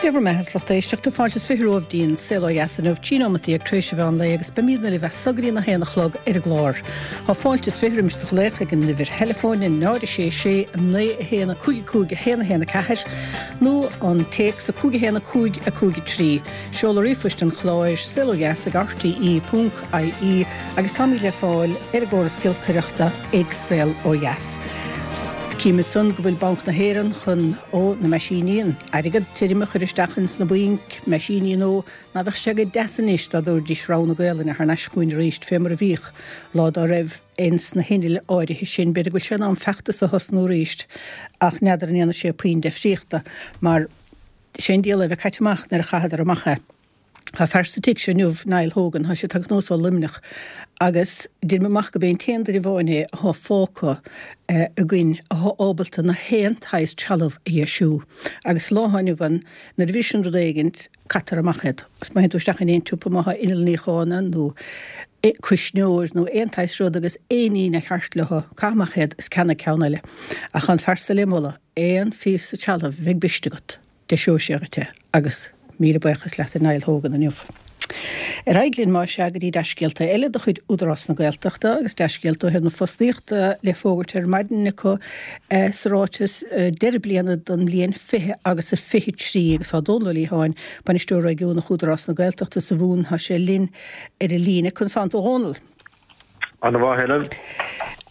Dé bhur mbeatha, a lucht éisteachta, fáilte is 20 romhaibh dtí'n Saol Ó Dheas inniu, 13 nóimeataí tar éis an mheán lae agus beimídne libh as so go dtí'n 1 a chlog ar an gclár. Tá fáilte is 20 roimis do ghlaoch ag an uimhir theileafóin 0 6 6 9 1 5 5 1 1 4 nó an téacs 5 1 5 5 3. Seoladh ríomhphoist an chláir, saolodheas ag rte ponc ie agus táimid le fáil ar an gcóras giolcaireachta ag Saol Ó Dheas. Cím ansan go bhfuil Banc na hÉireann chun, ó, na meaisíní, an airgead tirim a chur isteach ins na bainc, meaisíní nua, ná bheadh sé go deas anois dá dtabharfaidís rogha na Gaelainne thar n-ais chugainn arís fé mar a bhíodh lá dá raibh ins na hinnill áirithe sin. B'fhéidir go bhfuil sé in am feachtas a thosnú arís ach n'fheadar an ndéanfaidh sé puinn deifríochta mar sé an diabhal é a bheith caite amach nuair a chaitheadar amach é. Tá fear sa tigh seo inniu, Niall Hogan, tá sé tagtha anuas ó Luimneach agus deirim amach gurb é an t-aon duine amháin é athá fágtha againn athá ábalta na haon tsaghas trealamh a dheisiú. Agus sa lá athá inniu ann, nuair a bhriseann rud éigint, caitear amach iad. Agus má théann tú isteach in aon tsiopa, má thá inneall níocháin ann nó cuisneoir nó aon tsaghas rud agus aon ní nár cheart leo, caith amach iad is ceannaigh ceann eile. Ach tá an fear so le moladh, aon phíosa trealaimh a bheidh briste agat. Deiseoidh sé dhuit é agus míle buíochas leat a Niall Hogan inniu. Ar aghaidh linn más ea go dtí dea-scéalta eile de chuid Údarás na Gaeltachta agus dea-scéalta ó thaobh na fostaíochta le fógairt ar maidin acu sa ráiteas deireadh bliana don mbliain 20 agus a 23 agus tá Dónal Ó Liatháin, Bainisteoir Réigiúnach Údarás na Gaeltachta sa Mhumhain, tá sé linn ar an líne. Conas tánn tú a Dhónaill? Ana mhaith, Helen.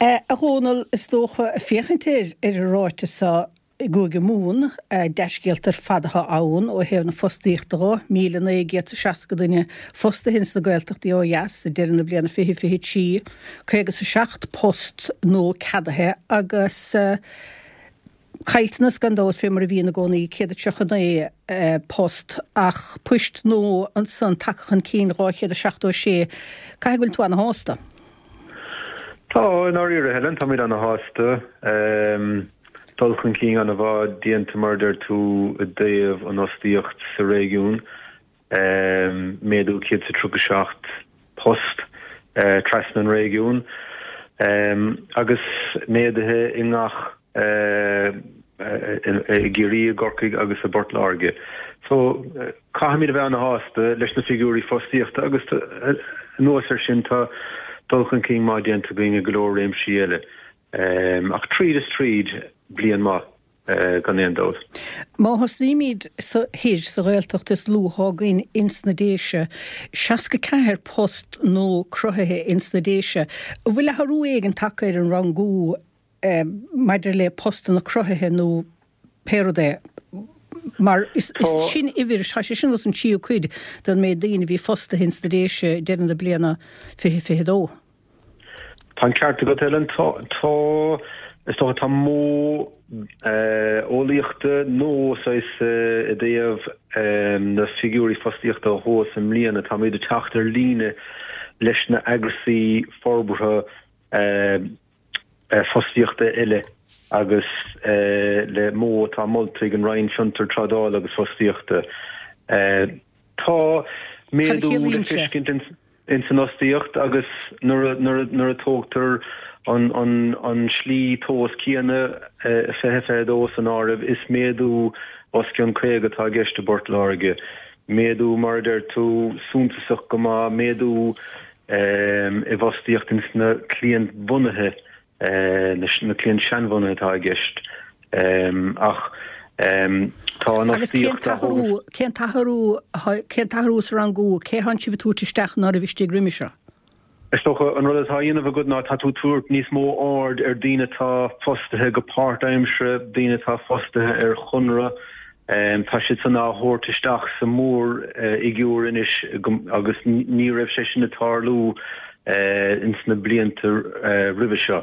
A Dhónaill, is dócha, féachaint ar an ráiteas seo, I gCúige Mumhan, dea-scéalta ar fad atá ann ó thaobh na fostaíochta dho, 1,960 duine fostaithe ins na Gaeltachtaí ó dheas ag deireadh na bliana 2023, 57 post nua ceadaithe agus caillteanas gan dabht fé mar a bhíonn i gcónaí, 139 post ach poist nua ansan tagtha chun cinn, 276. Caithfidh go bhfuil tú ana-shásta? Tá, i ndáiríre, Helen, táimid ana-shásta. Dul chun cinn ana-mhaith déanta, mar a deir tú, i dtaobh an fhostaíocht sa réigiún. Méadú 137 post trasna an réigiúin agus méaduithe i ngach i gCiarraí, i gCorcaigh agus i bPort Láirge. So, caithfimid a bheith ana-shásta leis na figiúirí fostaíochta agus anuas air sin tá dul chun cinn maith déanta againn i go leor réimsí eile. Ach tríd is tríd, bliain maith gan aon dabht. Má thosnaímid sa thoir, sa Ghaeltacht is lú athá againn ins na Déise, 64 post nua cruthaithe ins na Déise. An bhfuil athrú éigin tagtha ar an rangú maidir le postanna cruthaithe nó pé rud é? Mar is sin uimhir, tá sé sin os an tríú cuid den méid daoine a bhí fostaithe ins na Déise deireadh na bliana 2022. Tá an ceart agat, Helen. Tá, tá, is dócha, tá modh eolaíochta nua saghas i dtaobh na figiúirí fostaíochta a thomhas i mbliana. Táimid ag teacht ar líne leis na eagrasaí forbartha fostaíochta eile agus le modh atá molta ag an Roinn Fiontar, Trádála agus Fostaíochta. Tá Cad a méadú le chiallaíonn sé? feiscint ins an fhostaíocht agus nuair a tógtar an slí tomhas céanna, 2022 san áireamh, is méadú os cionn 50 atá i gceist i bPort Láirge. Méadú, mar a deir tú, suntasach go maith, méadú i bhfostaíocht ins na cliantbhunaithe na cliaint seanbhunaithe atá i gceist ach tá an Agus cén fhostaíocht á t-athrú, cén t-athrú, cén t-athrú sa rangú, cé thánn sibh ag tabhairt isteach ná raibh istigh roimhe seo? Is dócha an rud atá á dhéanamh agat ná tá tú ag tabhairt níos mó aird ar daoine atá fostaithe go páirtaimseartha, daoine atá fostaithe ar chonradh, tá siad san á thabhairt isteach sa mhórfhigiúr anois agus ní raibh sé sin ag tarlú ins na blianta roimhe seo.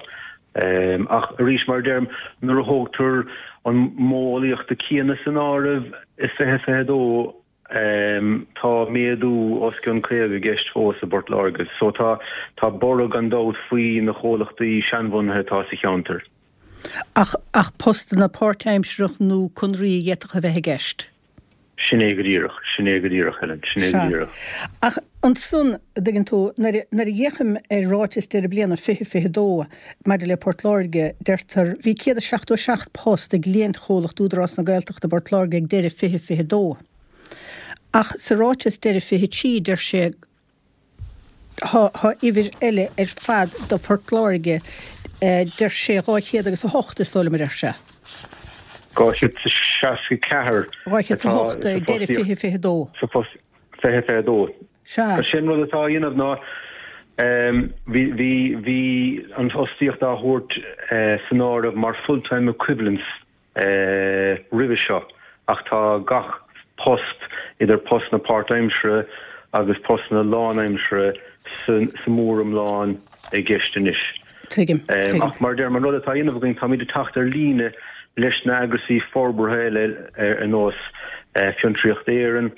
Ach arís, mar a deirim, nuair a thógtar an modh eolaíochta céanna san áireamh i 2022, tá méadú os cionn 50 i gceist fós i bPort Láirge. So tá tá borradh gan dabht faoi na chomhlachtaí seanbhunaithe atá sa cheantar. Ach ach postanna páirtaimsearach nó conraí a d'fhéadfadh a bheith i gceist? Sin é go díreach, sin é go díreach, Helen, sin é go Sea. díreach. Ach ansan, a dtuigeann tú, nuair a, nuair a fhéachaim ar ráiteas deireadh bliana 2022 maidir le Port Láirge, deirtear, bhí 177 post ag cliantchomhlacht Údarás na Gaeltachta i bPort Láirge ag deireadh 2022. Ach sa ráiteas deireadh 23 deir sé Tá uimhir eile ar fad do Phort Láirge, deir sé 200 agus 8 is dóigh liom a deir sé. 264 atá sa 208 deireadh 2022. Sa phost 2022. Sea. Sin rud atá á dhéanamh ná bhí bhí bhí an fhostaíocht á thabhairt san áireamh mar full time equivalents roimhe seo ach tá gach post, idir postanna páirtaimseartha agus postanna lánaimseartha sa mhóriomlán i gceist anois. Tuigim. Tuigim. Ach mar a deirim, an rud atá á dhéanamh againn, táimid ag teacht ar líne leis na eagrasaí forbartha eile ar nós Fiontraíocht Éireann,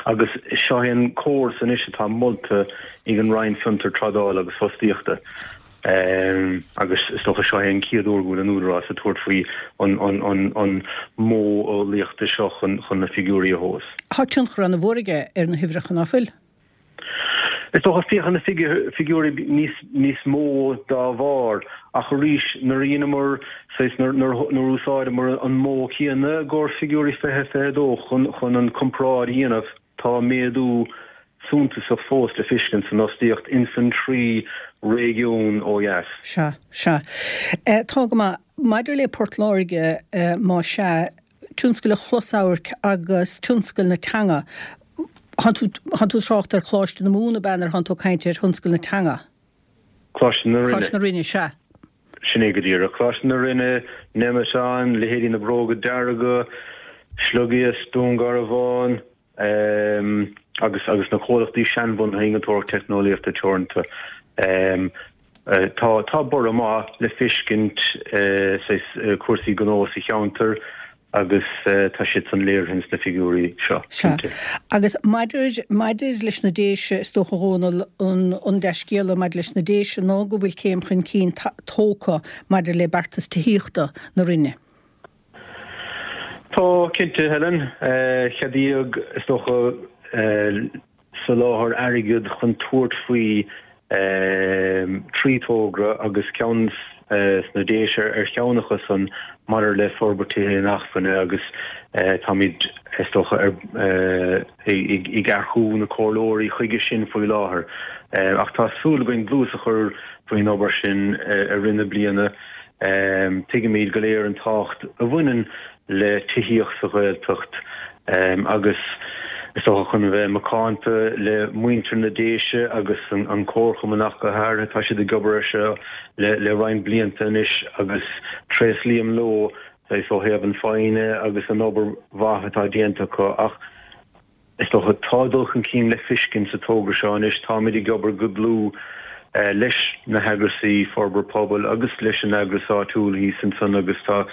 Agus seo é an córas anois atá molta ag an Roinn Fiontar, Trádála agus Fostaíochta agus is dócha seo é an chéad uair go bhfuil an Údarás ag tabhairt faoi an modh eolaíochta seo chun na figiúirí a thomhas. Tá tionchar an-mhór aige ar na huimhreacha, ná fuil? Is dócha, féachann na figiúirí níos mó dá bharr, ach arís, nuair a dheineamar, saghas, nuair a úsáideamar an modh céanna i gcomhair figiúirí 2022 chun an comparáid a dhéanamh, tá méadú suntasach fós le feiscint san fhostaíocht ins an trí réigiún ó dheas. Sea, sea. Tá go maith. Maidir le Port Láirge, más ea, tionscal an chlosamhairc agus tionscal na teanga, Thánn tú, thánn tú ag trácht ar Choláiste na Mumhan ab ea nuair thánn tú ag caint ar thionscal na teanga? Coláiste na Rinne. Coláiste na Rinne, sea. Sin é go díreach. Coláiste na Rinne, Nemeton, leithéidí na Bróga Dearga, Sliogiasc, Dún Garbhán, agus, agus na comhlachtaí seanbhunaithe Innealtóireacht Teicneolaíochta Teoranta. Tá, tá borradh maith le feiscint saghas cúrsaí gnó sa cheantar agus tá siad san léirithe ins na figiúirí seo, Sea. cinnte. Agus maidir, maidir leis na Déise, is dócha, a Dhónaill, an, an dea-scéala maidir leis na Déise ná go bhfuil céim chun cinn tógtha maidir le beartas tithíochta na Roinne. Tá, cinnte, Helen. Ceadaíodh, is dócha, soláthar airgid chun tabhairt faoi thrí thogra agus ceann sna Déise ar cheann acu san maidir le forbairt tithe inacmhainne agus táimid, is dócha, ag earcú na comhairleoirí chuige sin faoi láthair. Ach tá súil againn dlús a chur faoin obair sin i rith na bliana. Tuigimid go léir an tábhacht a bhaineann le tithíocht sa Ghaeltacht agus is dócha chun a bheith macánta le muintir na Déise agus an Comharchumann ach go háirithe, tá siad ag obair air seo le roinnt blianta anois agus tréaslaím leo saghas ó thaobh an foighne agus an obair mhaith atá déanta acu ach Is dócha, tá dul chun cinn le feiscint sa togra seo anois. Táimid ag obair go dlúth leis na heagrasaí forbartha pobail agus leis an eagras áitiúil thíos ansan agus tá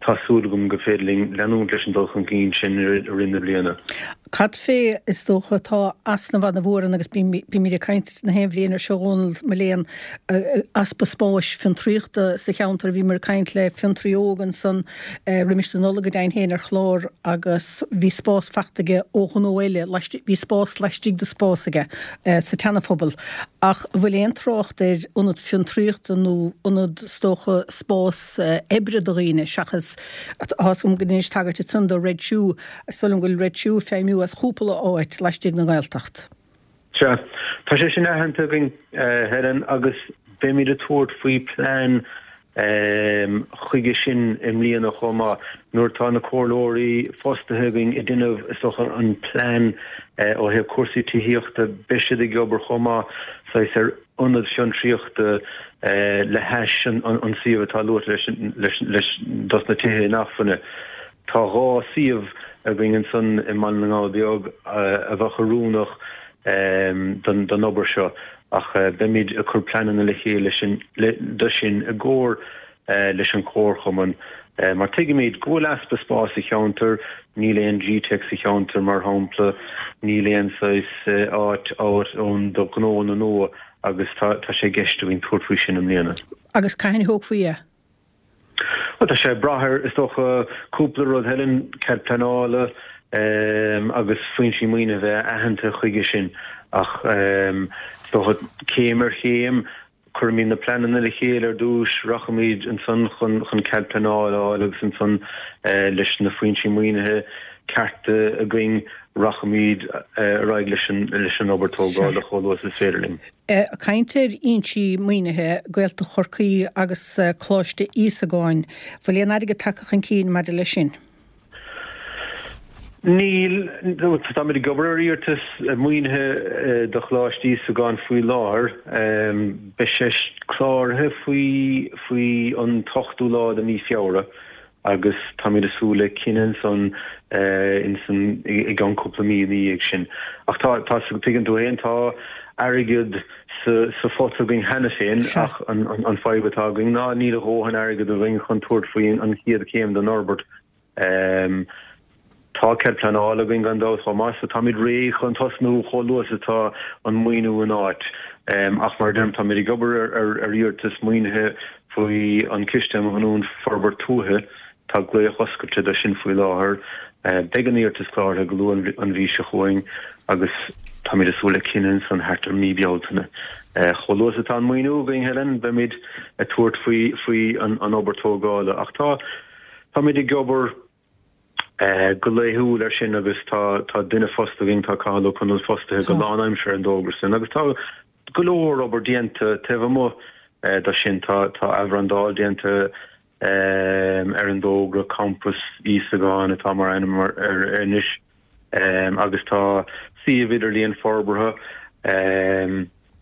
tá súil agam go féidir linn leanúint leis an dul chun cinn sin i rith na bliana. Cad fé, is dócha, tá easnamh ana-mhór ann agus bímid ag caint na haon bhliain ar seo, a Dhónaill, mo léan, easpa spáis fiontraíochta sa cheantar. Bhíomar ag caint le fiontraí óg ansan roimis na Nollag go deimhin féin ar chlár agus bhí spás fachta aige ó ghnó eile, bhí spás laistigh de spás aige sa tSeanaphobal. Ach an bhfuil aon trácht ar ionad fiontraíochta nó ionad, is dócha, spás oibre do dhaoine seachas, tá fhios agam go ndeinis tagairt ansan do Red Shoe, is dóigh liom go bhfuil Red Shoe ag feidhmiú as chúpla áit laistigh den Ghaeltacht. Sea, tá sé sin aitheanta againn, Helen, agus beimid ag tabhairt faoi plean chuige sin i mbliana chomh maith. Nuair atá na comhairleoirí fostaithe againn ag déanamh, is dócha, an plean ó thaobh cúrsaí tithíochta, beidh siad ag obair chomh maith saghas ar ionad fiontraíochta le hais an suíomh atá luaite leis dos na tithe inacmhainne. Tá 2 suíomh againn ansan i mBaile na nGall Beag a bheadh oiriúnach don obair seo ach beimid ag cur pleananna le chéile do sin i gcomhar leis an Chomharchumann mar tuigimid go bhfuil easpa spáis sa cheantar, níl aon GTeic sa cheantar mar shampla, níl aon saghas áit ann do ghnóanna nua agus tá sé i gceist againn tabhairt faoi sin i mbliana. Agus cathain a thógfaí é? Bhuel, tá sé ag brath ar, is dócha, cúpla rud, Helen, cead pleanála agus foinsí maoinithe a bheith aitheanta chuige sin ach is dócha céim ar chéim. Cuirfimid na pleananna le chéile ar dtús, rachaimid ansan chun chun cead pleanála a fháil agus ansan leis na foinsí maoinithe cearta againn rachaimid ar aghaidh leis an leis an obair tógála chomh luath is is féidir linn. Ag caint ar fhoinsí maoinithe, Gaeltacht Chorcaí agus Coláiste Íosagáin, bhfuil aon airgead tagtha chun cinn maidir leis sin? Níl. Táimid ag obair ar iarratas maoinithe do Choláiste Íosagáin faoi láthair. Beidh sé cláraithe faoi faoi an t-ochtú lá de mhí Feabhra agus táimid ag súil le cinneadh ansan insan i gceann cúpla mí ina dhiaidh sin. Ach tá, tá, tuigeann tú féin, tá airgead sa sa phota againn cheana féin ach an an fadhb atá againn ná níl a dhóthain airgead againn chun tabhairt faoi an chéad chéim den fhorbairt. Tá cead pleanála againn gan dabht chomh maith, so táimid réidh chun tosnú chomh luath is atá an maoiniú in áit. Ach mar a deirim, táimid ag obair ar iarratas maoinithe faoi an Ciste um Ghiniúint Forbairt Tuaithe. Tá glaoch oscailte do sin faoi láthair. Beidh an iarratas cláraithe go luath an mhí seo chugainn agus táimid ag súil le cinneadh ansan thart ar mí Bealtaine. Chomh luath is atá an maoiniú againn, Helen, beimid ag tabhairt faoi an obair tógála. Ach tá. Táimid ag obair go laethúil air sin agus tá tá duine fostaithe againn, tá Cathal Ó Conaill fostaithe go lánaimseartha ar an dtogra sin agus tá go leor obair déanta taobh amuigh de sin. Tá tá athbhrandáil déanta ar an dtogra, Campas Íosagáin atá mar ainm air anois agus tá suíomh idirlíon forbartha.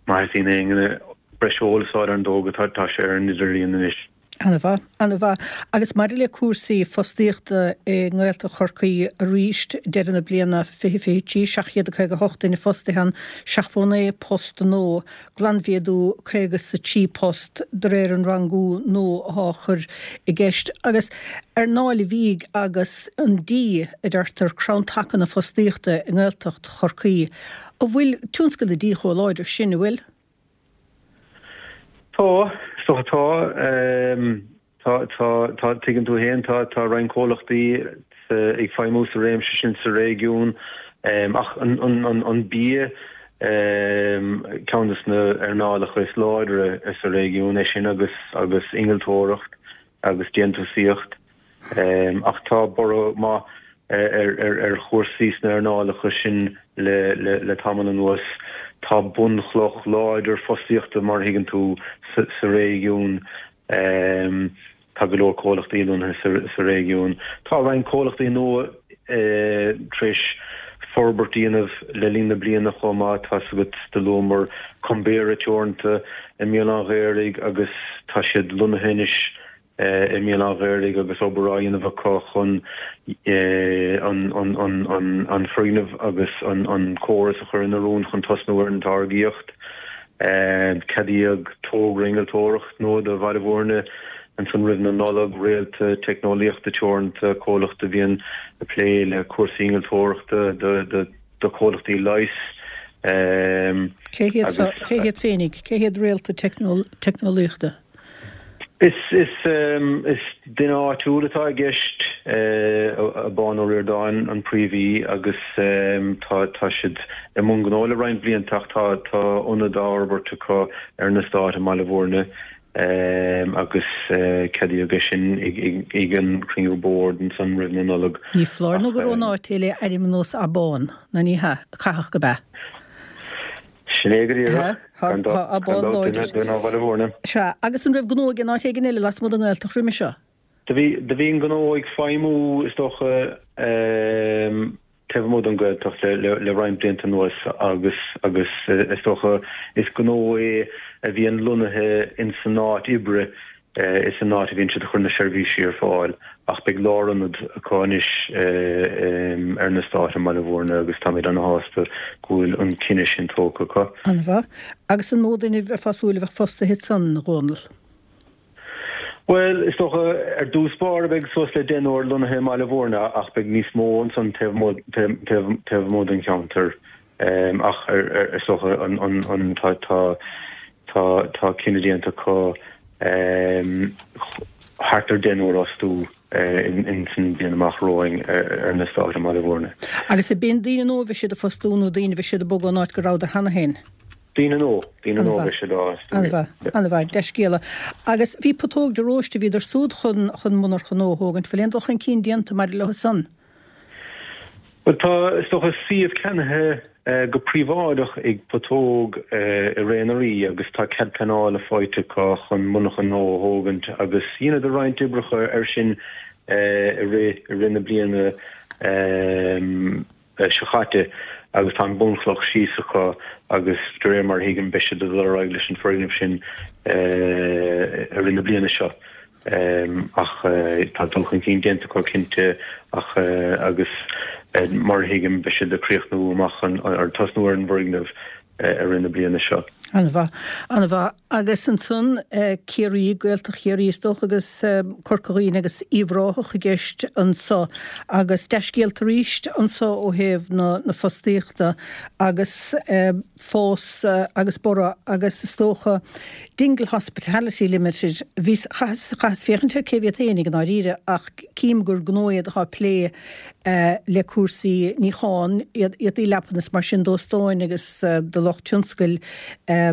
Má theastaíonn aon breis eolas a fháil ar an dtogra tá sé ar an idirlíon anois. Ana-mhaith, ana-mhaith. Agus maidir le cúrsaí fostaíochta i nGaeltacht Chorcaí arís, deireadh na bliana 2023, 758 duine fostaithe ann, 79 post nua, glanmhéadú 53 post de réir an rangú nua atá á chur i gceist. Agus earnáil an bhídh agus an dí, a deirtear, crann taca na fostaíochta i nGaeltacht Chorcaí. An bhfuil tionscal na dí chomh láidir sin, an bhfuil? Tá, is dócha tá. Tá, tá, tá, tuigeann tú féin, tá, tá roinnt comhlachtaí ag feidhmiú sa réimse sin sa réigiún. Ach an, an, an, an bia, ceann de na earnálacha is láidre sa réigiún é sin agus, agus innealtóireacht agus déantúsaíocht. Ach tá borradh maith ar chúrsaí sna earnálacha sin le tamall anuas. Tá bunchloch láidir fostaíochta, mar a thuigeann tú, sa réigiún. Tá go leor comhlachtaí lonnaithe sa réigiún. Tá roinnt comhlachtaí nua tar éis forbairt a dhéanamh le linn na bliana chomh maith. Tá's agat, do luamar Cumbera Teoranta i mBéal an Ghaorthaidh agus tá siad lonnaithe anois i mBéal an Ghaorthaidh agus obair á dhéanamh acu chun an foirgneamh agus an córas a chur in oiriúint chun tosnú ar an táirgíocht. Ceadaíodh togra innealtóireachta nua do Bhaile Bhúirne ansan roimh na Nollag, Réalta Teicneolaíochta Teoranta, comhlacht a bhíonn ag plé le cúrsaí innealtóireachta do chomhlachtaí leighis. Cé hiad féinig? Cé hiad Réalta Teicneolaíochta? Is duine áitiúil atá i gceist, Abán Ó Ríordáin an príomhaí agus tá siad i mbun gnó le roinnt blianta ach tá ionad á fhorbairt acu ar an eastát i mBaile Bhúirne agus ceadaíodh é sin ag an chruinniú boird ansan roimh na Nollag. Ní foláir nó gur ón áit é le ainm ar nós Abán, nó ní hea? Caithfidh gurb ea. Sin é go díreach. Gan dabht, duine ó Bhaile Bhúirne. Sea, agus an raibh gnó aige in áit éigin eile lasmuigh den nGaeltacht roimhe seo? Do bhí, do bhí an gnó ag feidhmiú, is dócha, taobh amuigh den Ghaeltacht le, le, le roinnt blianta anuas agus, agus is dócha, is gnó é a bhíonn lonnaithe ins an áit oibre Is san áit a bhíonn siad ag cur na seirbhísí ar fáil ach beidh lárionad acu anois ar an eastát i mBaile Bhúirne agus táimid ana-shásta go bhfuil an cinneadh sin tógtha acu. An-mhaith. Agus an mó duine a bheifeá ag súil a bheadh fostaithe ansan, a Dhónaill? Bhuel, is dócha, ar dtús báire beidh suas le deichniúr lonnaithe i mBaile Bhúirne ach beidh níos mó ansan taobh amuigh den cheantar. Ach is dócha an tá tá tá cinneadh déanta acu thart ar deichniúr a fhostú ins an bhliain amach romhainn ar an eastát i mBaile Bhúirne. Agus ab in daoine nua a bheidh siad a fostú nó daoine a bheidh siad a bogadh ón áit go rabhadar cheana féin? Daoine nua, daoine nua beidh siad á fhostú. An-mhaith, an-mhaith, dea-scéala. Agus bhí Putóg de Róiste, bhíodar súd chun, chun monarcha nua a thógaint, bhfuil aon dul chun cinn déanta maidir leo san? Bhuel tá, is dócha, suíomh ceannaithe go príobháideach ag Putóg i Ré na Rí agus tá cead pleanála faighte acu chun monarcha nua a thógaint agus dheineadar roinnt oibreacha air sin i rith, i rith na bliana. seo chaite agus tá an bunchloch síos acu agus de réir mar a thuigim beidh siad ag dul ar aghaidh leis an foirgneamh sin i rith na bliana seo. Ach tá dul chun cinn déanta acu cinnte ach agus mar a thuigim beidh siad ag críochnú amach an, ar tosnú ar an bhfoirgneamh i rith na bliana seo. An-mhaith. An-mhaith. Agus ansan Ciarraí, Gaeltacht Chiarraí is dócha agus Corca Dhuibhne agus Uíbh Ráthach i gceist anso. Agus dea-scéalta arís anso ó thaobh na fostaíochta agus fás agus borradh agus is dócha Dingle Hospitality Limited, bhíos, chaitheas, chaitheas féachaint ar cé hiad féinig i ndáiríre ach cím gur gnó iad atá ag plé le cúrsaí níocháin, éadaí leapan is mar sin d'óstáin agus do lucht tionscail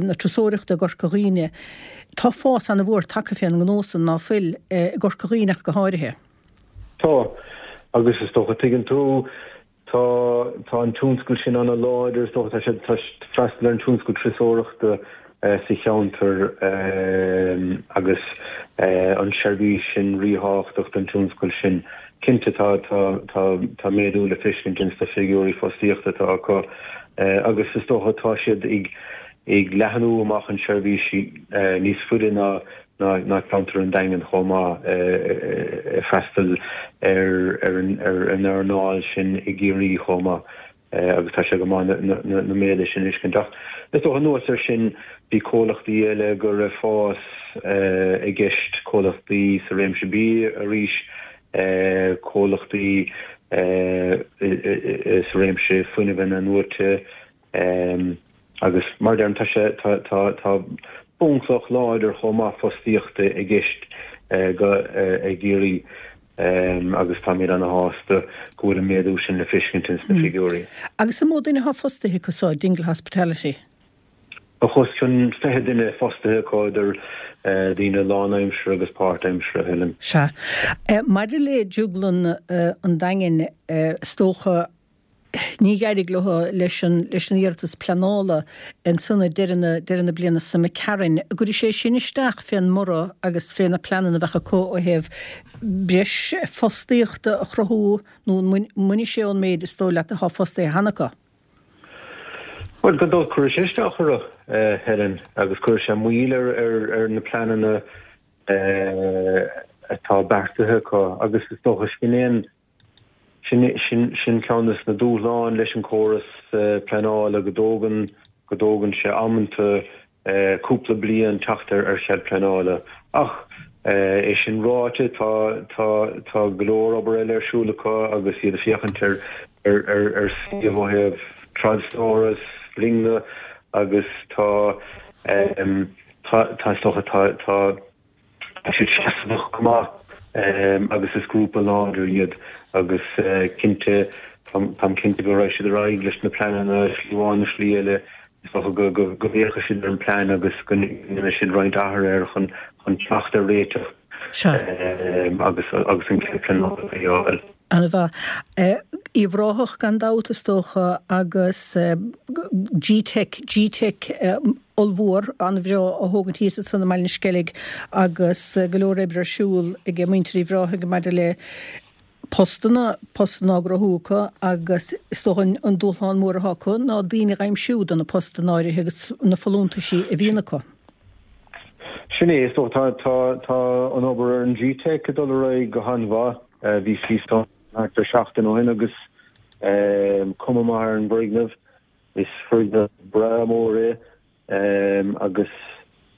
na turasóireachta i gCorca Dhuibhne. Tá fás ana-mhór tagtha fén ngnó san, ná fuil, i gCorca Dhuibhne ach go háirithe. Tá, agus is dócha, tuigeann tú, tá, tá an tionscal sin ana-láidir, is dócha, tá sé, tá freastal ar an tionscal turasóireachta sa cheantar agus an seirbhís sin ríthábhachtach don tionscal sin. Cinnte tá tá méadú le feiscint ins na figiúirí fostaíochta atá acu agus is dócha tá siad ag ag leathnú amach an seirbhís níos faide ná ná ceantar an Daingin chomh maith ag freastal ar ar an earnáil sin i gCiarraí chomh maith. agus tá sé go maith na méaduithe sin a fheiscint. Ach is dócha anuas air sin bhí comhlachtaí eile go raibh fás i gceist, comhlachtaí sa réimse bia arís, comhlachtaí sa réimse fuinnimh inathnuaite agus mar a deirim tá sé, tá, tá, tá bunchloch láidir chomh maith fostaíochta i gceist go, i gCiarraí. agus táimid ana-shásta go bhfuil an méadú sin le feiscint ins na figiúirí. Agus an mó duine atá fostaithe acu so, Dingle Hospitality? Tá os cionn 20 duine fostaithe acu, idir daoine lánaimseartha agus páirtaimseartha, Helen. Sea. Maidir le Drioglann an Daingin, is dócha, Ní d'éirigh leo leis an leis an iarratas pleanála ansan ag deireadh na deireadh na bliana seo imigh tharainn. An gcuirfidh sé sin isteach fén mborradh agus fé na pleananna a bheadh acu ó thaobh breis fostaíochta a chruthú nó an mbainfidh sé ón méid is dóigh leat atá fostaithe cheana acu? Bhuel, gan dabht cuirfidh sé isteach orthu, Helen, agus cuirfidh sé moill ar ar ar na pleananna atá beartaithe acu agus is dócha sin é an Sin ceann de na dúshláin leis an córas pleanála, go dtógann, go dtógann sé amanta cúpla bliain teacht ar chead pleanála. Ach é sin ráite, tá, tá, tá go leor obair eile ar siúl acu agus iad ag féachaint ar, ar, ar, ar suíomh ó thaobh trádstóras, loinge agus tá, tá, tá, is dócha, tá, tá, Tá siad seasmhach go maith agus is grúpa láidir iad agus cinnte, táim cinnte go raghaidh siad ar aghaidh leis na pleananna, slí amháin nó slí eile, is dócha go bhféachfaidh siad ar an bplean agus go ndéanfaidh siad roinnt athruithe air chun teacht ar réiteach agus agus an cead pleanála a fháil. An-mhaith. Uíbh Ráthach gan dabht is dócha agus G-Teic, G-Teic ollmhór, an-bhreá á thógaint thíos ansan i mBaile na Sceilg agus go leor oibre ar siúl ag muintir Uíbh Ráthaigh maidir le postanna, postanna á gcruthú acu agus is dócha an dúshlán mór atá acu ná daoine a aimsiú do na postanna áirithe agus na folúntaisí a bhíonn acu. Sin é, is dócha tá, tá, tá an obair ar an G-Teic ag dul ar aghaidh go han-mhaith. Bhíos thíos ann thart ar seachtain ó shin agus cuma maith ar an bhfoirgneamh. Is foirgneamh breá mór é agus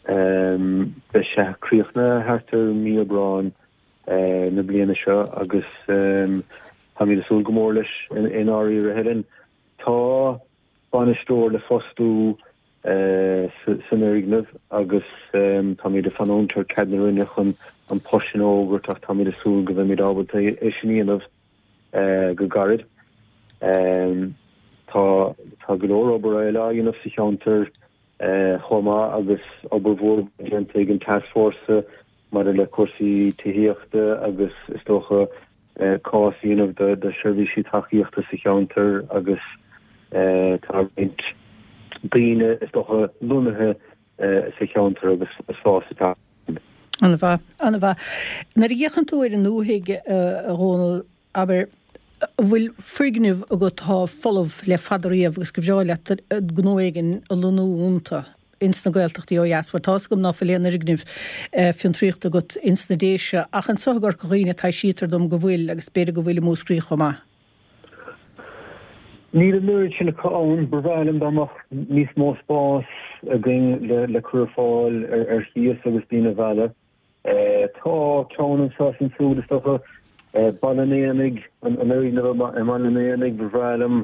beidh sé críochnaithe thart ar mí Aibreáin na bliana seo agus táimid ag súil go mór leis i ndáiríre, Helen. Tá bainisteoir le fostú san fhoirgneamh agus táimid ag fanúint ar cead na Roinne chun an post sin a fhógairt ach táimid ag súil go mbeimid ábalta é sin a dhéanamh go gairid. Tá tá go leor obair eile á dhéanamh sa cheantar. Chomh maith agus obair mhór déanta ag an Tascfhórsa maidir le cúrsaí tithíochta agus is dócha cás a dhéanamh do sheirbhísí tacaíochta sa cheantar agus tá roinnt daoine is dócha lonnaithe sa cheantar agus fás ag teacht. An-mhaith, an-mhaith. Nuair a fhéachann tú ar an ndúthaigh, a Dhónaill, abair, an bhfuil foirgnimh agat atá folamh le fada riamh agus gur bhreá leat gnó éigin a lonnú iontu ins na Gaeltachtaí ó dheas? Bhuel, tá's agam ná fuil aon fhoirgnimh fiontraíochta agat ins na Déise, ach anso i gCorca Dhuibhne taibhsítear dom go bhfuil agus b'fhéidir go bhfuil i Múscraí chomh maith. Níl an oiread sin acu ann. Ba bhreá liom dá mbeadh níos mó spás againn le cur ar fáil ar chíos agus daoine a mhealladh. Tá ceann anseo is ansiúd is dócha. Baile an Éanaigh, an fhoirgneamh i mBaile an Éanaigh, ba bhreá liom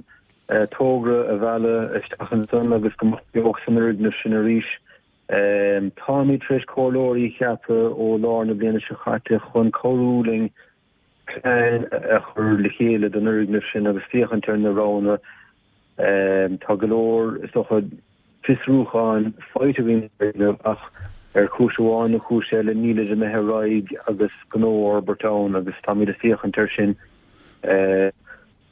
togra a mhealladh isteach ansan agus go mbeadh beocht san fhoirgneamh sin arís. Táimid tar éis comhairleoirí a cheapadh ó lár na bliana seo caite chun cabhrú linn plean a chur le chéile don fhoirgneamh sin agus féachaint ar na roghanna. Tá go leor, is dócha, fiosrúcháin faighte againn ar an bhfoirgneamh ach ar chúis amháin nó cúis eile nílid imithe ar aghaidh agus gnó a fhorbairt ann agus táimid ag féachaint air sin.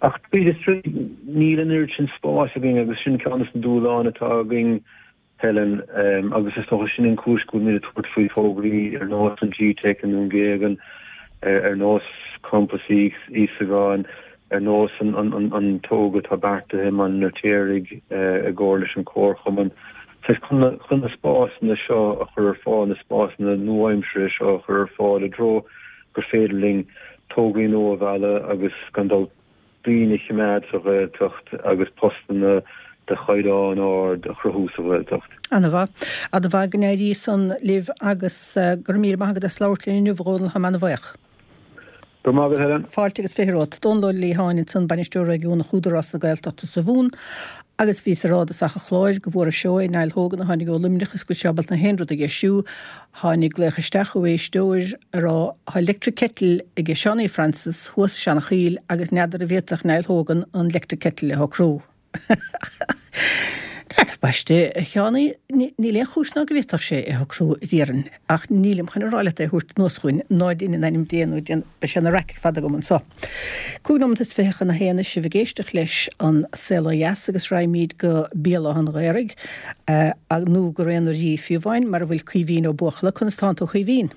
Ach tríd is tríd níl an oiread sin spáis againn agus sin ceann de na dúshláin atá againn Helen, Agus is dócha sin an chúis go bhfuilimid ag tabhairt faoi thograí ar nós an G-Teic i nDún Géagan, ar nós Campas Íosagáin, ar nós an togra atá beartaithe i mBaile an Fheirtéaraigh i gcomhar leis an Chomharchumann. Saghas chun na spásanna seo a chur ar fáil, na spásanna nua-aimseartha seo a chur ar fáil i dtreo gur féidir linn tograí nua a mhealladh agus gan dabht daoine a choimeád sa Ghaeltacht agus postanna de chaighdeán ard a chruthú sa Ghaeltacht. Ana-mhaith. Ana-mhaith. Go n-éirí san libh agus go raibh míle maith agat as labhairt linn inniu, a Dhónaill. Táim ana-bhaoch. Go raibh maith agat, Helen. Fáilte agus 20 romhat. Dónal Ó Liatháin ansan, Bainisteoir Réigiúnach Údarás na Gaeltachta sa Mhumhan agus bhíos ag rá i dtosach an chláir go bhfuair seó é Niall Hogan a tháinig ó Luimneach is go bhfuil sé ábalta na haon rud a dheisiú. Tháinig glaoch isteach ó éisteoir a rá Tá electric kettle aige Seánie Francis thuas i Seanachoill agus n'fheadar an bhféadfadh Niall Hogan an electric kettle a shocrú. N'fheadar, baiste, a Sheánie, níl aon chúis ná go bhféadfadh sé é a shocrú, a déarfainn, ach nílim chun a rá leat é a thabhairt anuas chugainn, ná dein in ainm Dé nó déan, beidh sé ina raic ar fad agam anso. 25 nóimeat chun a haon sibh ag éisteacht leis An Saol Ó Dheas agus raghaimid go Béal Átha an Ghaorthaidh, nó go Raon an Rí fiú amháin, mar a bhfuil Caoimhín Ó Buachalla. Conas tánn tú, a Chaoimhín?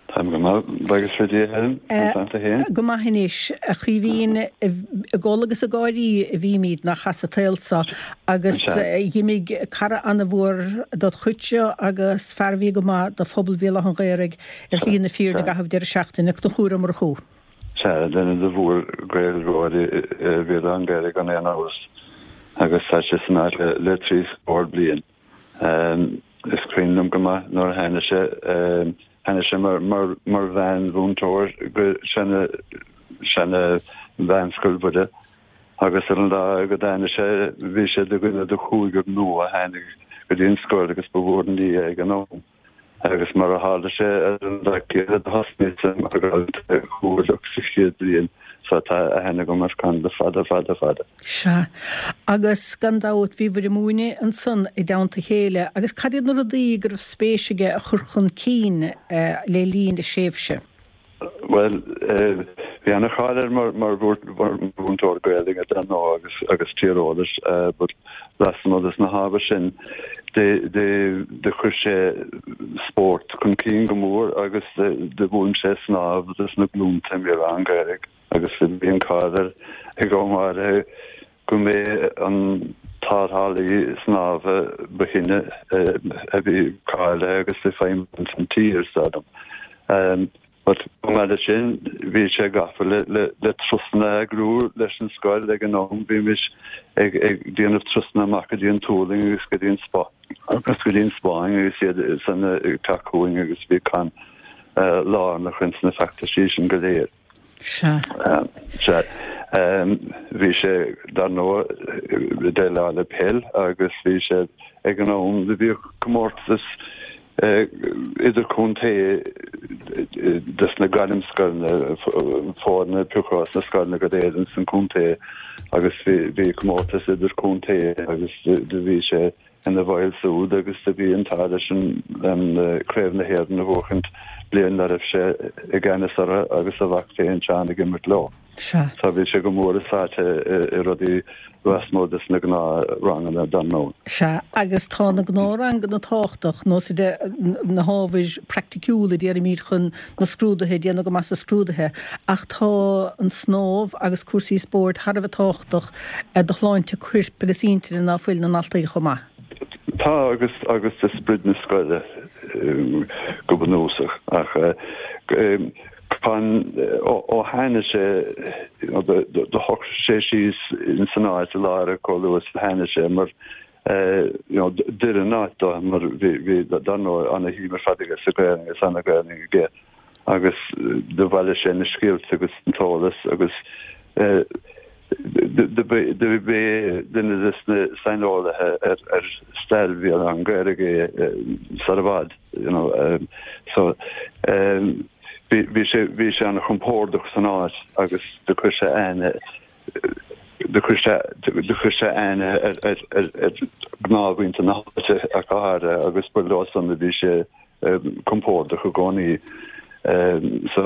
Táim go maith, buíochas le Dia, Helen. Conas tánn tú féin? Go maith anois, a Chaoimhín. Ag gol agus ag gáirí a bhímid nár chas an tsaol so agus dh'imigh cara ana-mhór dod chuidse agus fear a bhí go maith do phobal Bhéal Átha an Ghaorthaidh ar shlí na fírinne i gcaitheamh deireadh seachtaine. Conchúr Ó Murchú. Sea, duine de mhór-Ghaeilgeoirí Bhéal Átha an Ghaorthaidh gan aon amhras, agus tá sé san áit le trí scór bliain. Is cuimhin liom go maith nuair a tháinig sé, tháinig sé mar mheánmhúinteoir go seana, seana Mheánscoil Mhuire agus ar an lá go dtáinig sé, bhí sé de dhuine de chúigear nua a tháinig go dtí an scoil agus ba mhór an ní é ag an am. Agus mar a tharla sé ar an lá céanna do thosnaíos-sa mar dhalta comhairleach sa chéad bhliain so tá aithne agam ar Con le fada fada fada. Sea. Agus gan dabht bhíobhair ag múineadh ansan i dteannta a chéile. Agus cad iad na rudaí go raibh spéis aige a chur chun cinn le linn a thréimhse? Bhuel, bhí ana-cháil air mar mhúinteoir Gaelainne dar ndóigh agus agus tíreolais but lasmuigh des na hábhair sin do chuir sé spórt chun cinn go mór agus do mhúin sé snámh dos na glúnta i mBéal Átha an Ghaorthaidh agus bhí an cáil air ag am áirithe go mb'é an tarrthálaí snámha ba shine a bhí cáilithe agus ag feidhmiú san tír, is dóigh liom. But chomh maith leis sin, bhí sé gafa le le turasanna a eagrú leis an scoil ag an am. Bhímis ag ag déanamh turasanna amach go dtí an Tualaing agus go dtí an agus go dtí an Spáinn agus iad san ag teacht chugainn agus bhí Con lárnach ins na feachtaisí sin go léir. Sea. Sea. Bhí sé, dar ndóigh, ag déileáil le peil agus bhí sé ag an am do bhíodh comórtas idirchontae dos na gairmscoileanna, foirne a piocadh as na scoileanna go léir ins an chontae agus bhí comórtas idirchontae agus do bhí sé. ina bhaill súd agus do bhí an t-ádh leis an Craobh na hÉireann a bhuachaint bliain dá raibh sé i gceannas orthu agus a mhac féin Seán ag imirt leo. Sea. So bhí sé go mór sáite i rudaí lasmuigh des na gnáthranganna dar ndóigh. Sea, agus tá na gnáthranganna tábhachtach, nós de na hábhair praiticiúla déarfaimid chun na scrúduithe, déanamh go maith sa scrúduithe, ach tá an snámh agus cúrsaí spóirt thar a bheith tábhachtach do shláinte coirp agus intinne ná fuil na ndaltaí chomh maith. Tá, agus agus do sprid na scoile go bunúsach, ach Con, ó tháinig sé, do shocraigh sé síos ins an áit i láthair chomh luath is a tháinig sé mar you know d'oir an áit dó mar bhí bhí dar ndóigh ana shuim ar fad aige sa Ghaelainn agus ana Ghaelainn aige agus do bhailigh sé na scéalta agus an t-eolas agus do b'é duine des na saineolaithe ar ar stair Bhéal Átha an Ghaorthaidh é sar i bhfad. You know, so bhí bhí sé bhí sé an-chompordach san áit agus do chuir sé aithne do chuir sé do chuir sé aithne ar ar ar ar ghnáthmhuintir na háite ach go háirithe agus ba leo san a bhí sé compordach i gcónaí. So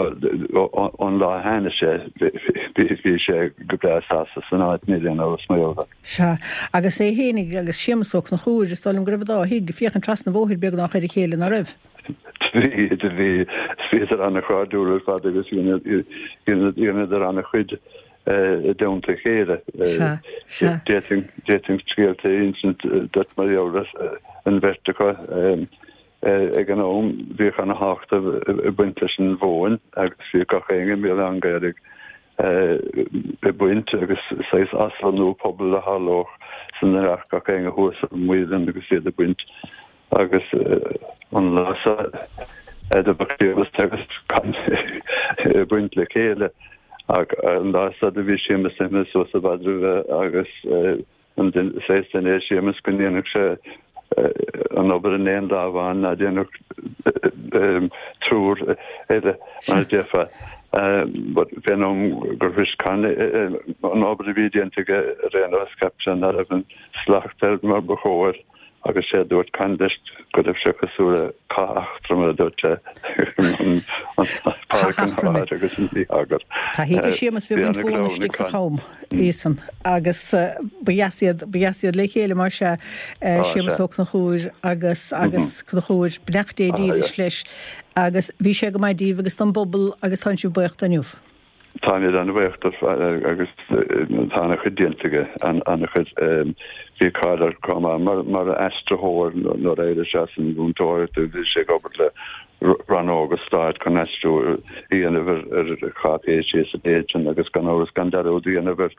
ón lá a tháinig sé bhí bhí sé go breá sásta san áit níl aon amhras mar gheall air. Sea, agus é fhéinig agus Séamus Ó Conchúir, is dóigh liom go raibh an dá thigh ag féachaint trasna an bhóthair beagnach ar a chéile, ná raibh? Bhí, bhí, bhíodar an-chairdiúil ar fad agus dheineadar an-chuid i dteannta a chéile. Sea, sea. D'fhéadfainn scéalta a insint duit mar gheall ar an bheirt acu. Ag an am bhíodh an-thábhacht ag baint leis an mhóin agus bhíodh gach éinne i mBéal Átha an Ghaorthaidh ag baint agus saghas aslonnú pobail a tharlódh san a rachadh gach éinne thuas ar an muileann agus iad ag baint agus an lá seo do bheadh Séamus agus Con ag baint le chéile ach an lá seo do bhí Séamus imithe suas i bhfad roimhe agus An saghas duine é Séamus go ndéanfadh sé an obair in aon lá amháin ná déanfadh triúr eile mar a déarfá. But fén am gur shrois Con an obair a bhí déanta aige ar aon nós cheap sé ná raibh an slacht air mar ba chóir. Agus sé a dúirt Con leis go raibh sé cosúil le cath Eachtroma, a dúirt sé, an Páirc an Áir agus an Mhí-eagar. Tá thig Séamus bhí baint mhóna istigh sa cham, bhí san. Agus ba dheas iad, ba dheas iad le chéile mar sea, Séamus Ó Conchúir agus, agus Conchúir, beannacht Dé dílis leis. Agus bhí sé go maith díbh agus don bpobal agus tánn sibh buíoch de inniu. Táimid an-bhuíoch de agus tá an-chuid déanta aige, an-chuid. Bhí cáil air chomh maith mar aistritheoir nuair a d'éirigh sé as an mhúinteoireacht bhí sé ag obair le rannóga stáit chun aistriú a dhéanamh ar cháipéisí is a leithéid sin agus gan amhras gan dearúd a dhéanamh ar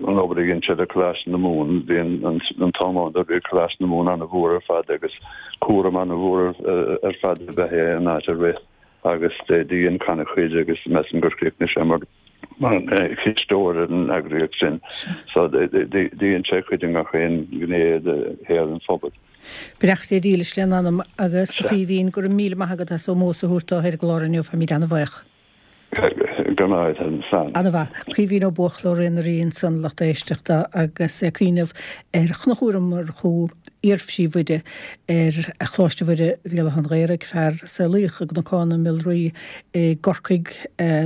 an obair a dhein sé le Coláiste na Mumhan. Bhí an t-am ann bhí Coláiste na Mumhan an-mhór ar fad agus cúram an-mhór ar fad ab ea é an áit a rith. agus do dhein Con a chuid agus measaim gur chríochnaigh sé mar chisteoir ar an eagraíocht sin. So dhein sé a chuid i ngach aon ghné de shaol an phobail. Beannacht Dé dílis lena anam agus a Chaoimhín, go raibh míle maith agat as ómós a thabhairt dó ar an gclár inniu, táimid an-bhuíoch. Go raibh maith agat, slán. Ana-mhaith. Caoimhín Ó Buachalla ó Ré na Rí ansan, lucht éisteachta, agus é ag cuimhneamh ar Chonchúr Ó Murchú, iar-phríomhoide ar Choláiste Mhuire Bhéal Átha an Ghaorthaidh, fear a saolaíodh i gCnocán na Miolraí i gCorcaigh,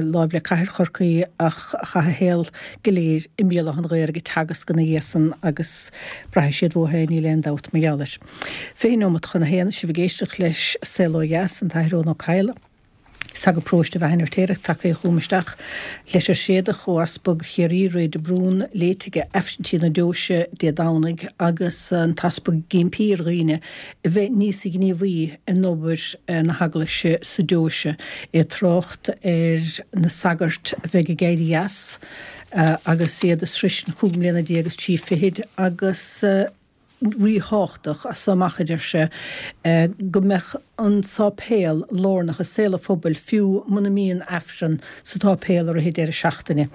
láimh le cathair Chorcaí, ach a chaith a shaol go léir i mBéal Átha an Ghaorthaidh ag teagasc ina dhiaidh san agus braithfidh siad uathu é, níl aon dabht mar gheall air. 20 neomat chun a haon, sibh ag éisteacht leis Saol Ó Dheas, an tAthair Eoin Ó Cadhla. Sagart Paróiste Bheatha an Fheirtéaraigh tagtha chugam isteach. Leitir thréadach ó Easpag Chiarraí, Ray de Brún, léite aige Aifrinntí na Deoise Dé Domhnaigh agus an tEaspag ag impí ar dhaoine a bheith níos gníomhaí in obair na hEaglaise sa deoise. É ag trácht ar na sagairt a bheidh ag éirí as agus iad ag sroisint chúig mbliana déag is trí fichid agus ríthábhachtach as so amach, a deir sé, go mbeadh an sáipéal lárnach i saol an phobail fiú muna mbíonn Aifreann sa tsáipéal i rith an deireadh seachtaine.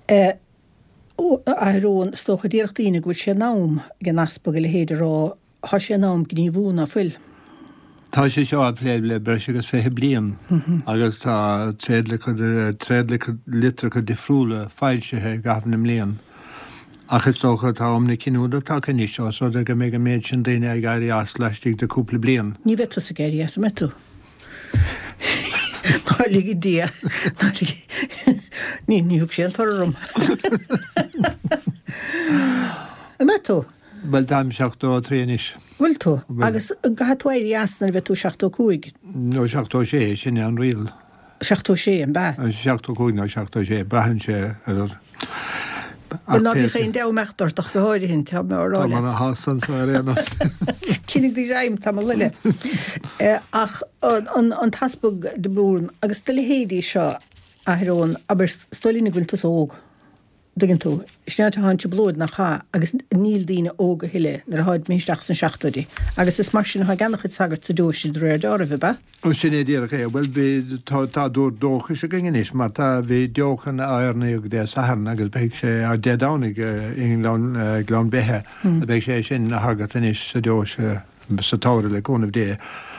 A Athair Eoin, is dócha, déarfadh daoine go bhfuil sé in am ag an Easpag a leithéid a rá, tá sé in am gníomhú, ná fuil? Tá sé seo á phlé le breis agus 20 bliain agus tá tréadlitreacha difriúla foilsithe i gcaitheamh na mblian. Ach is dócha tá am na cinniúna tagtha anois, ós rud é go mbeidh an méid sin daoine ag éirí as laistigh de cúpla bliain. Ní bheidh tusa ag éirí as, an mbeidh tú? Ná lige Dia, ná lige, ní, ní thug sé an toradh orm. An mbeidh tú? Bhuel, táim 73 anois. Bhfuil tú? Agus an gcaithfidh tú éirí as nuair a bheidh tú 75? Nó 76, sin é an riail. 76, an b'ea? 75 nó 76, braitheann sé ar. Bhuel, ná bíodh aon dea-imeacht ort ach go háirithe, tá mé á rá leat. Tá mé ana shásta anseo ar aon nós. Coinnigh do ghreim tamall eile. Ach an tEaspag de Brún agus do leithéidí seo, a Athair Eoin, abair, is dóigh linn go bhfuil tusa óg. dtuigeann tú. Sin é tá an trioblóid nach ea agus níl daoine óg a thuilleadh nuair atáid imithe isteach sna seachtóidí. Agus is mar sin atá ag ana-chuid sagart sa deoise de réir deáraimh, ab ea? Ó sin é díreach é. Bhuel bhí, tá, tá dúr dóchais againn anois mar tá, bhí deochan á oirníodh Dé Sathairn agus beidh sé, Dé Domhnaigh i nGleann, Gleann Beithe, beidh sé sin ina shagart anois sa deoise. sa tsamhradh le cúnamh Dé.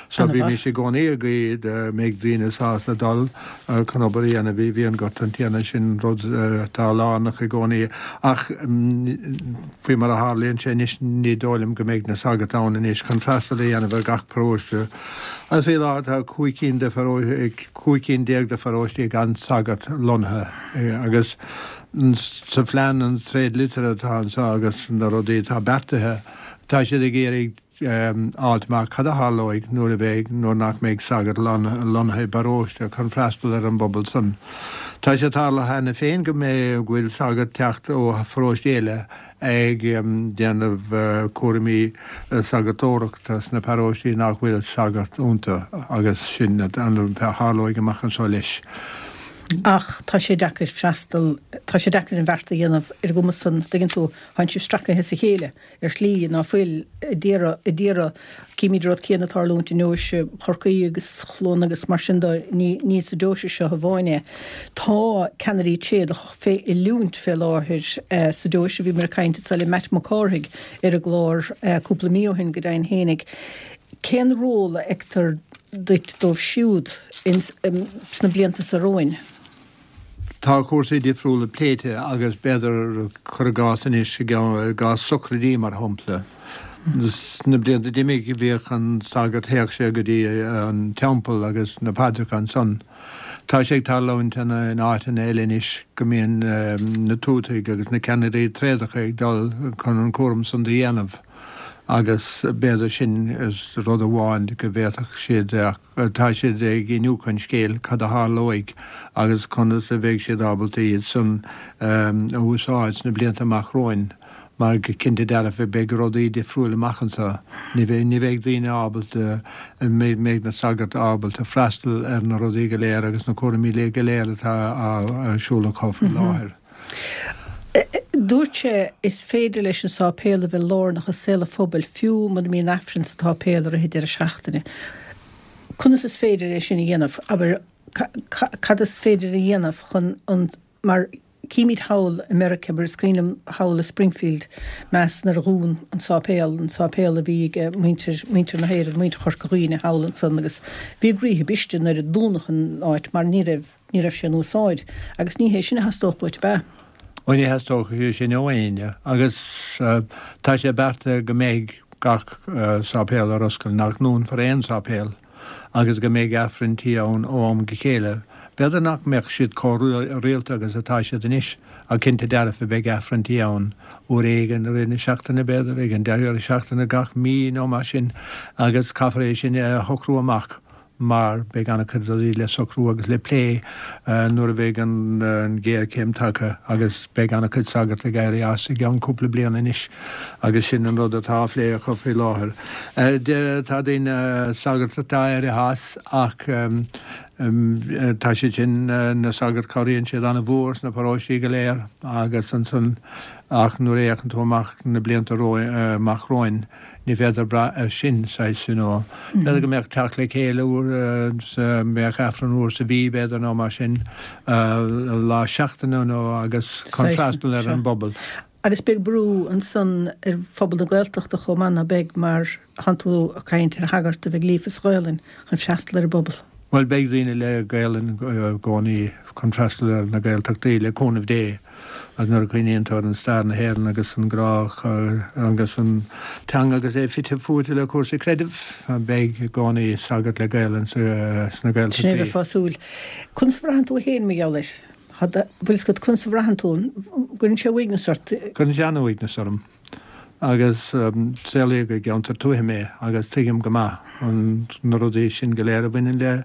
So bímis i gcónaí ag guí go mbeidh daoine sásta dul chun obair a dhéanamh i bhfíonghort an Tiarna, sin rud atá lárnach i gcónaí. Ach faoi mar a tharlaíonn sé anois ní dóigh liom go mbeidh na sagairt ann anois chun freastal a dhéanamh ar gach paróiste. Agus faoi láthair tá 15 cinn de 15 cinn de pharóistí gan sagart lonnaithe agus sa phlean an tréadlitir atá anseo agus na rudaí atá beartaithe, Tá siad ag iarraidh fháilt amach cad a tharlóidh nuair a bheidh, nuair nach mbeidh sagart lonnaithe i bparóiste chun freastal ar an bpobal san. Tá sé tarlaithe cheana féin go mbeidh, go bhfuil sagart teacht ó pharóiste eile ag déanamh cúraimí sagartóireachta sna paróistí nach bhfuil sagart iontu agus sin a tharlóidh amach anseo leis. Ach tá sé deacair freastal, tá sé deacair an bheart a dhéanamh ar an gcuma san, tuigeann tú, Tánn sibh stracaithe as a chéile ar shlí ná fuil a d'iarraidh, a d'iarraidh. Címid an rud céanna ag tarlúint i ndeoise Chorcaí agus Chluana agus mar sin de, ní, ní sa deoise seo amháin é. Tá ceannairí tréadach fé oiliúint fé láthair sa deoise. Bhíomar ag caint anso le Matt Mac Cárthaigh ar an gclár cúpla mí ó shin go deimhin fhéinig. Cén ról a fheictear duit dóibh siúd ins, sna blianta so romhainn? Tá cúrsaí difriúla pléite agus b'fhéidir, cuir i gcás anois, i gcás sochraidí mar shampla. Sna blianta d'imigh bhíodh an sagart, théadh sé go dtí an teampall agus na paidreacha ansan. Tá sé ag tarlúint in áiteanna eile anois go mbíonn na tuataigh agus na ceannairí tréadacha ag dul chun an cúram san do dhéanamh agus b'fhéidir sin rud amháin go bhféadfadh siad Tá siad ag iniúchadh an scéil, cad a tharlóidh agus conas a bheidh siad ábalta iad san a úsáid sna blianta amach romhainn mar go cinnte dearfa beidh rudaí difriúil amach anseo. Ní bheidh, ní bheidh daoine ábalta, mbeidh na sagairt ábalta freastal ar na rudaí go léir agus na cúraimí go léir atá ar siúl acu faoi láthair. Dúirt sé, Is féidir leis an sáipéal a bheith lárnach i saol an phobail fiú muna mbíonn Aifreann sa tsáipéal i rith an deireadh seachtaine. Conas is féidir é sin a dhéanamh? Abair, cad is féidir a dhéanamh chun an, mar címid thall i Meiriceá, abair, is cuimhin liom thall i Springfield, Mass, nuair a dhún an sáipéal, an sáipéal a bhí ag muintir, muintir na hÉireann, muintir Chorca Dhuibhne thall ansan agus bhí a gcroíthe briste nuair a dúnadh an áit mar ní raibh, Ní raibh sé in úsáid, agus ní hé sin a theastódh uait, ab ea? Ó ní theastódh sé sin ó éinne, agus tá sé beartaithe go mbeidh gach sáipéal ar oscailt, nach ndúnfar aon sáipéal, agus go mbeidh Aifrinntí ann ó am go chéile. B'fhéidir nach mbeadh siad chomh rialta agus atá siad anois, ach cinnte dearfa beidh Aifrinntí ann, uair éigin i rith na seachtaine, b'fhéidir, ag an deireadh seachtaine gach mí nó mar sin, agus caithfear é sin a shocrú amach. mar beidh an-chuid rudaí le socrú agus le plé nuair a bheidh an ghéarchéim tagtha agus beidh an-chuid sagart ag éirí as i gceann cúpla bliain anois agus sin an rud atá á phlé acu faoi láthair. Tá daoine, sagairt atá éirithe as ach tá siad sin, na sagairt, cabhraíonn siad an-mhór sna paróistí go léir agus ansan ach nuair a fhéachann tú amach na blianta amach romhainn, Ní féidir brath air sin, saghas, you know. B'fhéidir go mbeadh teacht le chéile uair sa, mbeadh Aifreann uair sa mhí, b'fhéidir, nó mar sin, lá seachtaine nó agus chun freastal ar an bpobal. Agus beidh brú ansan ar phobal na Gaeltachta chomh maith, ná beidh, mar thánn tú ag caint ar shagart a bheidh líofa sa Ghaelainn chun freastal ar an bpobal. Bhuel, beidh daoine le Gaelainn i gcónaí chun freastal ar na Gaeltachtaí, le cúnamh Dé, agus nuair a chuimhníonn tú ar an stair na hÉireann agus an grá agus an teanga agus é fite fuaite le cúrsaí creidimh, beidh i gcónaí sagart le Gaelainn sna Gaeltachtaí. Sin é a bheifeá ag súil. Conas a bhraitheann tú féin mar gheall air? Bhfuil fhios agat conas a bhraitheann tú? Gcuireann sé uaigneas ort? Cuireann sé an-uaigneas orm. Agus saolaíodh i gceantar tuaithe mé agus tuigim go maith an na rudaí sin go léir a bhaineann le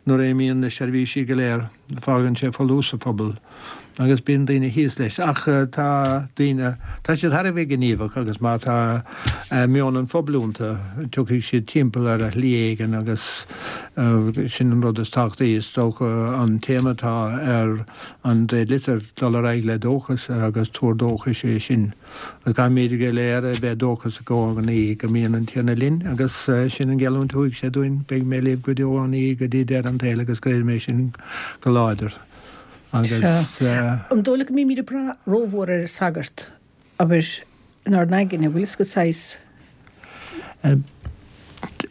nuair a imíonn na seirbhísí go léir, fágann sé folús sa phobal agus bíonn daoine thíos leis. Ach tá daoine, tá siad thar a bheith gníomhach agus má tá meon an phobail iontu, tiocfaidh siad timpeall ar shlí éigin agus sin an rud is tábhachtaí. Is dócha an téama atá ar an dtréadlitir, dul ar aghaidh le dóchas agus tuar dóchais é sin. Caithfimid go léir a bheith dóchasach i gcónaí go mbíonn an Tiarna linn agus sin an gheallúint a thug sé dúinn, beidh mé libh go deo an ní go dtí deireadh an tsaoil agus creidim é sin go láidir agus. Sea. An dóigh leat go mbímid ag brath rómhór ar an sagart, abair, inár n-aigne, bhfuil fhios agat saghas?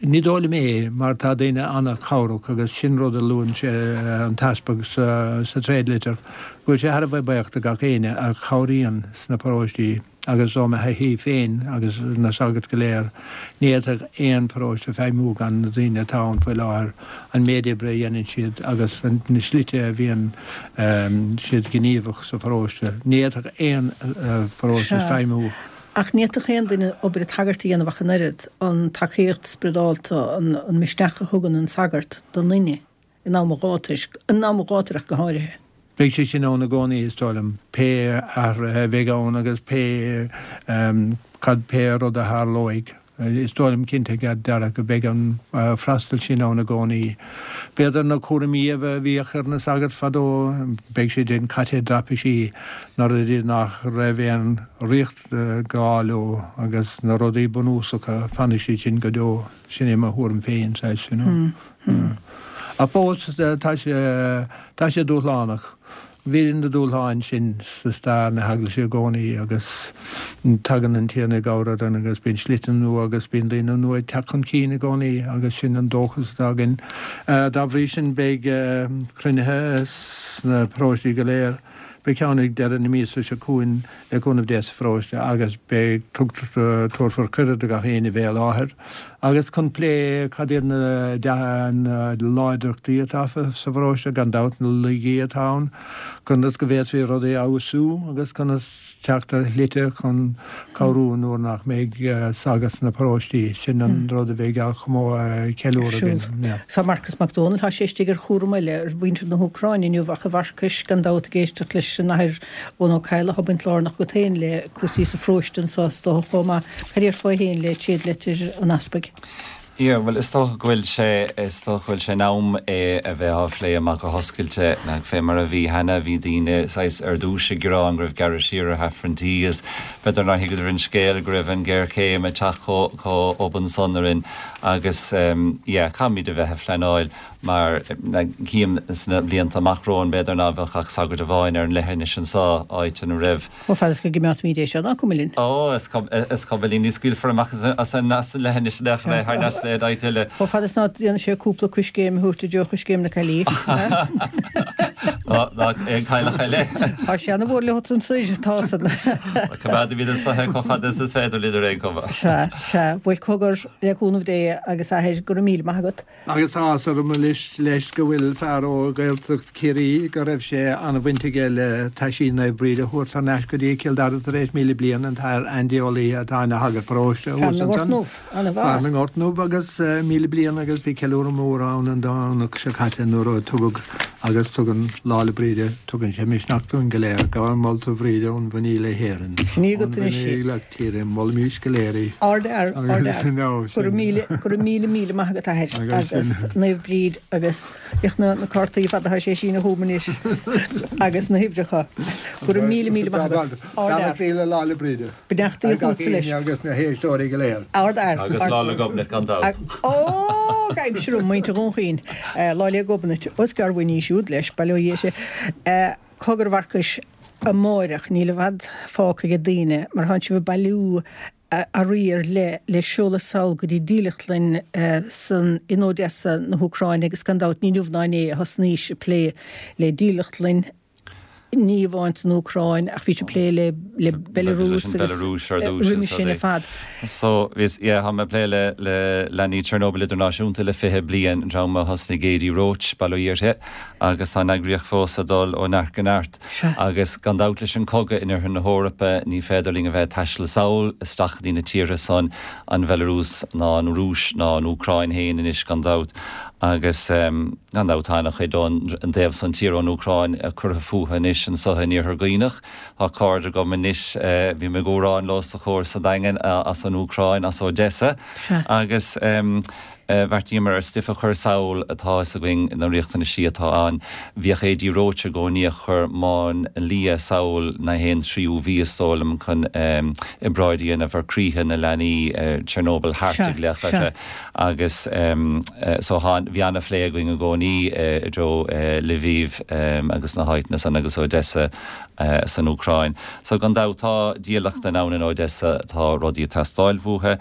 Ní dóigh liom é, mar tá daoine an-chabhrach agus sin rud a luann sé, an tEaspag, sa tréadlitir, go bhfuil sé thar a bheith buíoch do gach éinne a chabhraíonn sna paróistí agus ó mo thaithí féin agus na sagairt go léir, ní fhéadfadh aon pharóiste feidhmiú gan na daoine atá ann faoi láthair, an méid oibre a dhéanann siad agus na slite a bhíonn siad gníomhach sa pharóiste. Ní fhéadfadh aon pharóiste feidhmiú. Ach ní fhéadfadh aon duine obair an tsagairt a dhéanamh ach an oiread, an tacaíocht spioradálta, an misneach a thugann an sagart don duine in am an ghátair, in am an ghátair ach go háirithe. Beidh sé sin ann i gcónaí, is dóigh liom, pé athruithe a bheidh ann agus pé cad, pé rud a tharlóidh. Is dóigh liom cinnte dearfa go mbeidh an freastal sin ann i gcónaí. B'fhéidir na cúraimí a bhíodh ar na sagairt fadó, beidh siad sin caite i dtraipisí, na rudaí nach raibh aon riacht gá leo agus na rudaí bunúsacha, fanfaidh siad sin go deo. Sin é mo thuairim féin, saghas, you know. Ach fós, tá sé, tá sé dúshlánach. Bhí na dúshláin sin sa stair na hEaglaise i gcónaí agus tagann an Tiarna i gcabhair orainn agus bíonn slite nua agus bíonn daoine nua ag teacht chun cinn i gcónaí agus sin an dóchas atá againn. Dá bhrí sin beidh cruinnithe sna paróistí go léir. Beidh ceann ag deireadh na míosa seo chugainn le cúnamh Dé sa pharóiste agus beidh, tabharfar cuireadh do gach éinne bheith i láthair agus chun plé cad iad na láidreachtaí atá sa pharóiste, gan dabht na laigí atá ann, conas go bhféadfaí rudaí a fheabhsú agus conas teacht ar shlite chun cabhrú nuair nach mbeidh sagart sna paróistí. Sin an rud a bheidh á cheiliúradh againn. Tá Marcas Mac Dónaill, tá sé istigh ar chúram eile ar mhuintir na hÚcráine inniu ach a Mharcais, gan dabht ag éisteacht leis an Athair Eoin Ó Cadhla, tá baint lárnach agat féin le cúrsaí sa pharóiste anseo is dócha chomh maith. Cad déarfá féin le tréadlitir an Easpaig? Yeah, bhuel is dócha go bhfuil sé, is dócha go bhfuil sé in am é a bheith á phlé amach go hoscailte. Nach fé mar a bhí cheana, bhí daoine saghas ar dtúis ag gearán go raibh gearradh siar ar Aifrinntí agus b'fhéidir nár thuigeadar an scéal go raibh an ghéarchéim ag teacht chomh chomh obann san orainn agus yeah, caithfimid a bheith ag pleanáil mar cím sna blianta amach romhainn b'fhéidir ná bheadh ach sagart amháin ar an leithinis anseo, áit ina raibh. Chomh fada is go gcimeádfaimid é seo, ná cuma linn. Ó, is cuma linn, ní scaoilfear amach as an leithinis nach é thar n-ais le áit eile. Chomh fada is ná déanann sé cúpla coiscéim a thabhairt i dtreo choiscéim na caillí. Ná aon chailleach eile. Tá sé ana-mhór leo ansoir, tá san. Coimeádfaimid anseo é chomh fada is is féidir linn ar aon chuma. Sea, sea. Bhuel, cogar, le cúnamh Dé agus Athair, go raibh míle maith agat. Agus tá áthas orm anois leis go bhfuil fear ó Ghaeltacht Chiarraí go raibh sé an-bhaint aige le taisí Naomh Bríd a thabhairt thar n-ais go dtí Cill Dara tar éis 1,000 bliain, an tAthair Andy Ó Laoithe atá ina shagart paróiste thuas ansan. Fear na nGort nDubh agus 1,000 bliain agus bhí ceiliúradh mór ann an Domhnach seo caite nuair a tugadh agus tugann Lá 'le Bríde, tugann sé misneach dúinn go léir, Gabhaim molta Bhríde ón bhFiníl le hÉirinn, Sin í agat anois í. Tíre, molaimís go léir í. Ardfhear, ardfhear. Go raibh míle, go raibh míle, míle maith agat athair agus Naomh Bríd agus féach na na cártaí fada atá sé ag síneadh chugam anois agus na huimhreacha. Go raibh míle, míle maith agat. Ardfhear. Beannachtaí le Lá 'le Bríde. Beannachtaí chugatsa leis. Agus na héisteoirí go léir. Ardfhear. Agus Lá 'le Gobnait gan dabht. Ó, gabhaimse romham, muintir Dhún Chaoin. Lá 'le Gobnait. Os gearr bhain í siúd leis, bail ó Dhia uirthi. Cogar a Mharcais, amáireach, níl i bhfad fágtha ag daoine mar thánn sibh ag bailiú. Earraí ar leith le seoladh sall go dtí dílleachtlann san in Odessa na hÚcráine agus gan dabht ní inniu ná inné a thosnaís ag plé le dílleachtlann, ní amháin san Úcráin ach bhís ag plé le le Belarus agus roimhe sin ar fad. So bhíos, yeah, tá mé ag plé le le Leanaí Chernobyl Idirnáisiúnta le 20 bliain, an dream a thosnaigh Adi Roche, bail ó Dhia uirthi, agus tá an eagraíocht fós ag dul ó neart go neart. Agus gan dabht leis an cogadh in oirthear na hEorpa ní féidir linn a bheith ag taisteal sall isteach go dtí na tíortha san, an Bhelarúis ná an Rúis ná an Úcráin féin anois gan dabht. Agus gan dabht tá ana-chuid ón dtaobh san tíre ón Úcráin curtha fúthu anois anso in Iarthar Dhuibhneach. Tá cairde agam anois, bím ag amhrán leo sa chór sa Daingean as an Úcráin, as Odessa. Agus. Bheartaíomar ar stuif a chur sall tá fhios againn na riachtanaisí atá ann. Bhíodh Adi Roche i gcónaí ag cur máinlia sall na haon tríú mhí is dóigh liom chun obráid a dhéanamh ar croíthe na leanaí Chernobyl Heart a glaoch orthu agus so thá bhí ana-phlé againn i gcónaí i dtreo Lviv agus na háiteanna san agus Odessa san Úcráin. So gan dabht tá dílleachtlann ann in Odessa tá rudaí ag teastáil uathu.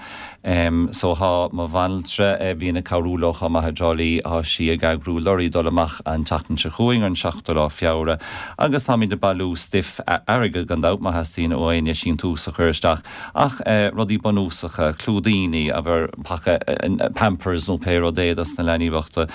So thá mo bhanaltra, a bhíonn ag cabhrú leo chomh maith i dTrá Lí, thá sí ag eagrú lorry dul amach an tseachtain seo chugainn, ar an seachtú lá Feabhra, agus táimid ag bailiú stuif, airgead gan dabht, má theastaíonn ó éinne síntiús a chur isteach, ach rudaí bunúsacha, clúidíní, abair paca Pampers nó pé rud é dos na leanaí bochta,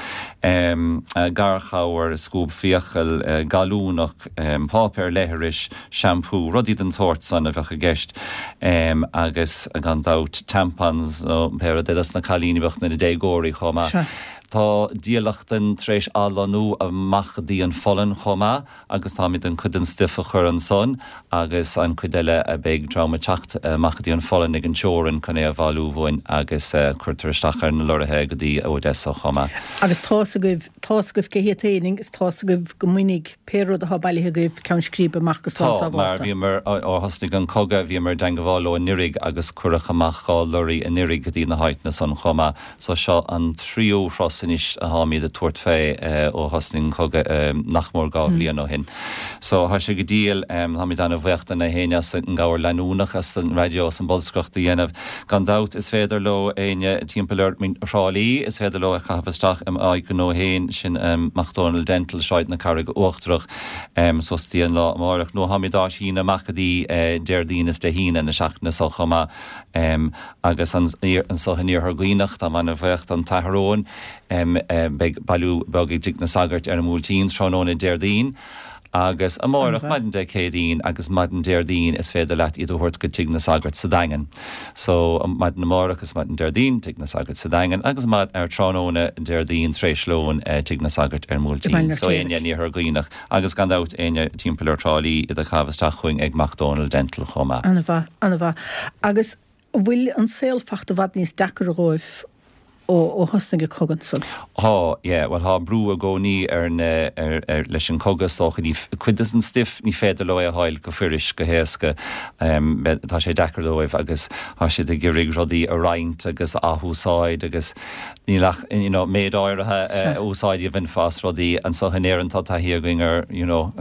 garchabhair, scuab fiacal, gallúnach, páipéar leithris, shampoo, rudaí den tsórt san a bheadh i gceist agus gan dabht tampons nó pé rud é dos na cailíní bochta, na déagóirí chomh maith. Tá dílleachtlann tar éis athlonnú amach go dtí an Pholainn chomh maith agus táimid chun cuid den stuif a chur ansan agus an cuid eile beidh dream ag teacht amach go dtí an Pholainn ag an teorainn chun é a bhailiú uainn agus cuirtear isteach ar na lorraithe go dtí Odessa chomh maith. Agus tá's agaibh, tá's agaibh cé hiad féin agus tá's agaibh go mbainfidh pé rud atá bailithe agaibh ceann scríbe amach go slán Tá, mar sábhálta. bhíomar, ó thosnaigh an cogadh, bhíomar i dteangabháil leo anuiridh agus cuireadh amach 2 lorry anuiridh go dtí na háiteanna san chomh maith. So seo an tríú thuras anois atáimid ag tabhairt fé ó thosnaigh an cogadh nach mór 2 bhliain ó shin. So tá sé go diail, táimid ana-bhuíoch de na héinne as an gcabhair leanúnach, as an raidió, as an bolscaireacht a dhéanamh. Gan dabht is féidir leo éinne timpeall ar Thrá Lí, is féidir leo é a chaitheamh isteach i m'áit ghnó féin, sin Mac Dónaill Dental, Sráid na Carraige Uachtarach, suas dtí an lá amáireach. Nó táimid á síneadh amach go dtí Déardaoin is Dé hAoine na seachtaine so chomh maith. Agus anso in Iarthar Dhuibhneach, táim ana-bhuíoch don tAthair Eoin, beidh bailiú beag i dTigh na Sagart ar an mBuailtín tráthnóna Déardaoin. Agus amáireach, maidin Dé Céadaoin agus maidin Déardaoin is féidir leat iad a thabhairt go Tigh na Sagart sa Daingean. So, maidin amáireach is maidin Déardaoin, Tigh na Sagart sa Daingean agus ar tráthnóna Déardaoin tar éis lóin, Tigh na Sagart ar an mBuailtín. So, éinne in Iarthar Dhuibhneach agus gan dabht éinne timpeall ar Thrá Lí, iad a chaitheamh isteach chugainn ag Mac Dónaill Dental chomh maith. Ana-mhaith, ana-mhaith. Agus An bhfuil an saol fachta i bhfad níos deacair dhóibh ó thosnaigh an cogadh ansan? Thá, yeah. Bhuel, thá brú i gcónaí ar na, ar, ar, leis an cogadh is dócha. Ní, cuid des an stuif, ní féidir leo é a fháil go fuirist, go héasca. Tá sé deacair dóibh agus thá siad ag iarraidh rudaí a roinnt agus a athúsáid agus níl ach, you know, méid áirithe úsáid a bhainfeá as rudaí. Anso in Éirinn tá taithí againn ar, you know,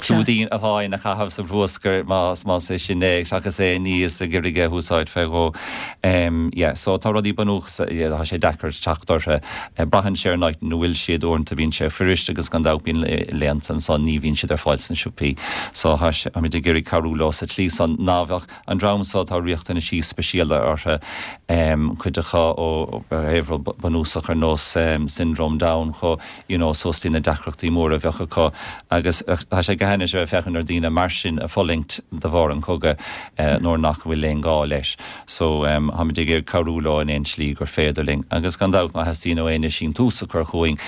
clúidín amháin a chaitheamh sa bhruascar más, más é sin é, seachas é a ní is ag iarraidh é a úsáid fé dhó. Yeah, so tá rudaí bunúsacha, yeah, tá sé deacair teacht orthu. Braitheann sé ar an áit ina bhfuil siad, uaireanta bíonn sé fuirist agus gan dabht bíonn laethanta ansan ní bhíonn siad ar fáil sna siopaí. So tá sé, táimid ag iarraidh cabhrú leo sa tslí san ná bheadh An dream so tá riachtanaisí speisialta orthu, cuid acu ó thaobh rud bunúsach ar nós Syndrome Down chomh you know suas dtí na deacrachtaí móra a bheadh acu agus tá sé go hainnis a bheith ag féachaint ar daoine mar sin ag fulaingt de bharr an chogaidh nuair nach bhfuil aon gá leis. So táimid ag iarraidh cabhrú leo in aon slí gur féidir linn. Agus gan dabht má theastaíonn ó éinne síntiús a chur chugainn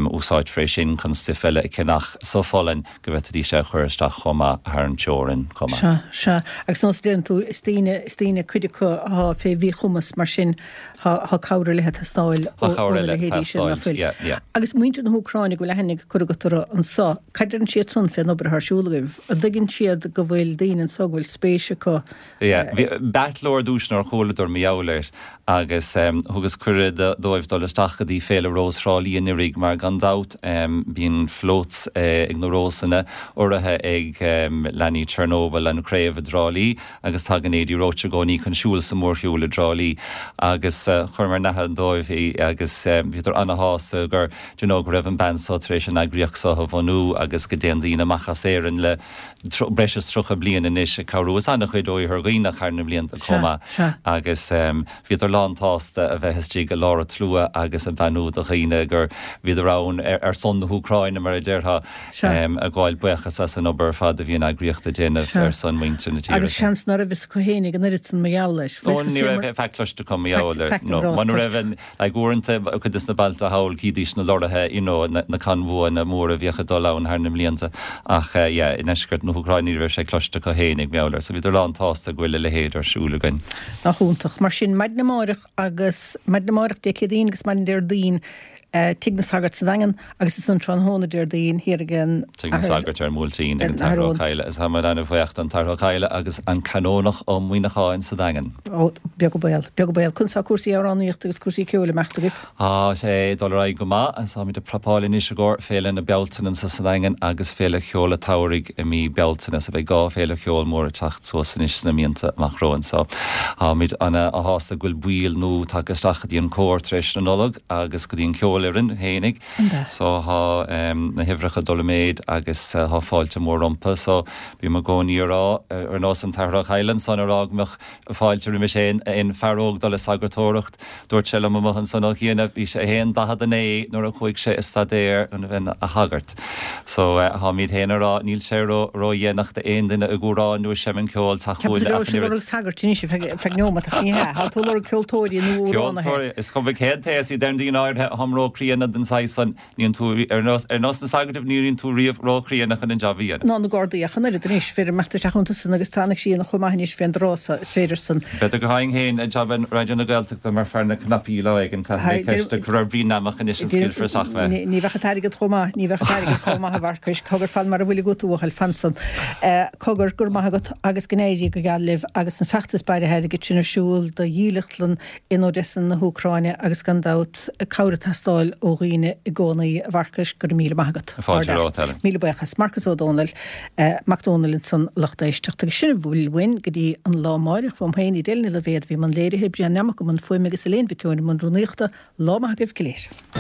úsáidfear é sin chun stuif eile a cheannach sa Pholainn go bhféadfaidís é a chur isteach chomh maith thar an teorainn chomh maith. Sea, sea. Agus nós a deireann tú, is daoine, is daoine, cuid acu athá fé mhíchumas, mar sin thá, thá cabhair ar leith ag teastáil Thá cabhair óna eile ag leithéidí sin, nach teastáilt, bhfuil? yeah, yeah. Agus muintir na hÚcráine go bhfuil aithne curtha agat orthu anso, cad deireann siad san fén obair athá ar siúl agaibh? An dtuigeann siad go bhfuil daoine anso go bhfuil spéis acu Yeah, bhí, b'ait leo ar dtús nuair a chualadar mar gheall air agus thugas cuireadh. cuireadh dóibh dul isteach go dtí Féile Rós Thrá Lí anuraidh mar gan dabht bíonn floats ag na Rósanna urraithe ag leanaí Chernobyl, an chraobh i dTrá Lí agus tagann Adi Roche i gcónaí chun siúl sa mhórshiúl i dTrá Lí agus chuireamar in aithne dóibh í agus bhíodar ana-shásta gur do you know go raibh an bean so tar éis an eagraíocht so a bhunú agus go dtéann daoine amach as Éirinn le breis is 30 bliain anois ag cabhrú is an-chuid ó Iarthar Dhuibhneach thar na blianta chomh maith agus bhíodar lán tsásta a bheith istigh i lár an tslua agus ag beannú do dhaoine gur bhíodar ann ar son na hÚcráine mar a déarfá ag gabháil buíochas as an obair ar fad a bhí an eagraíocht ag déanamh ar son muintir na tíre. Agus seans ná raibh fhios acu féinig an oiread san mar gheall air. Ó ní raibh faic cloiste acu mar gheall air. No, muna raibh an Like uaireanta, cuid des na bailte thall, chídís na lorraithe, you know, na conbhuanna móra a bhíodh ag dul ann thar na mblianta ach yeah, i ndeisceart na hÚcráine ní raibh sé cloiste acu fhéinig mar gheall air. So bhíodar lán tsásta go bhfuil a leithéid ar siúl againn. Nach iontach. Mar sin, maidin amáireach agus maidin amáireach Dé Céadaoin agus maidin Déardaoin, Tigh na Sagart sa Daingean agus ansan tráthnóna Déardaoin thiar ag an Tigh na Sagart ar an mBuailtín ag an tAthair Ó Cadhla agus táimid an-bhuíoch don tAthair Ó Cadhla agus an Canónach Ó Muíneacháin sa Daingean. Ó, beag an baol, beag an baol. Conas tá cúrsaí amhránaíochta agus cúrsaí ceoil ag imeacht agaibh? Tá sé ag dul ar aghaidh go maith agus táimid ag prapáil anois i gcomhair Féile na Bealtaine anso sa Daingean agus Féile Cheoil an tSamhraidh i mí Bealtaine so beidh 2 féile cheoil mór ag teacht suas anois sna míonta amach romhainn so táimid ana-shásta go bhfuil baill nua tagtha isteach go dtí an cór tar éis na Nollag. agus go dtí an cheolfhoireann fhéinig. So thá na huimhreacha ag dul i méid agus thá fáilte mór rompu. So bím i gcónaí a rá, ar nós an tAthair Ó Cadhla ansan a rá go mbeadh fáilte roimis aon fear óg dul ag sagartóireacht. Dúirt sé liom amuigh ansan ó chianaibh, bhí sé fhéin 49 nuair a chuaigh sé ag staidéar chun a bheith ina shagart. So tháimíd fhéin a rá, níl sé ró-dhéanach d'aon duine ag amhrán nó ag seimint ceoil teacht chugainn ach an oiread. Lorg sagairt anois ar feadh neomat ach ní hea. Tá tú ag lorg ceoltóirí nó amhránaithe. Ceoltóirí, is cuma cén t-aos iad deireann daoine áirithe, táim ró-chríonna don saghas san, níonn tú, ar nós, ar nós na sagart, ní bhíonn tú riamh ró-chríonna chun an jab a dhéanamh. Ná na Gardaí ach an oiread anois, féidir imeacht isteach iontu san agus tá an ghrian chomh maith anois fén dtráth so, is féidir san. B'fhéidir go bhfaighinn féin jab i Raidió na Gaeltachta mar fear na cnaipí lá éigin, caithfidh mé ceist a chur ar Bhrian Neamach anois an scaoilfear isteach mé. Ní bheadh an t-airgead chomh maith, ní bheadh an t-airgead chomh maith a Mharcais, cogar fan mar a bhfuil agat a bhuachaill, fan san. Cogar, go raibh maith agat agus go n-éirí go geal libh agus an feachtas bailithe airgid sin ar siúl do dhílleachtlann in Odessa na hÚcráine agus gan dabht cabhair ag teastáil ó dhaoine i gcónaí. A Mharcais, go raibh míle maith agat. Fáilte romhat, Helen. Míle buíochas. Marcas Ó Dónaill, Mac Dónaill ansan lucht éisteachta. Agus sin a bhfuil uainn go dtí an lá amáireach. Uaim féin, Edel Ní Loibhéad a bhí i mbun léirithe, Brian Neamach i mbun fuaime agus Elaine Mhic Eoin i mbun rúnaíochta. Lá maith agaibh go léir.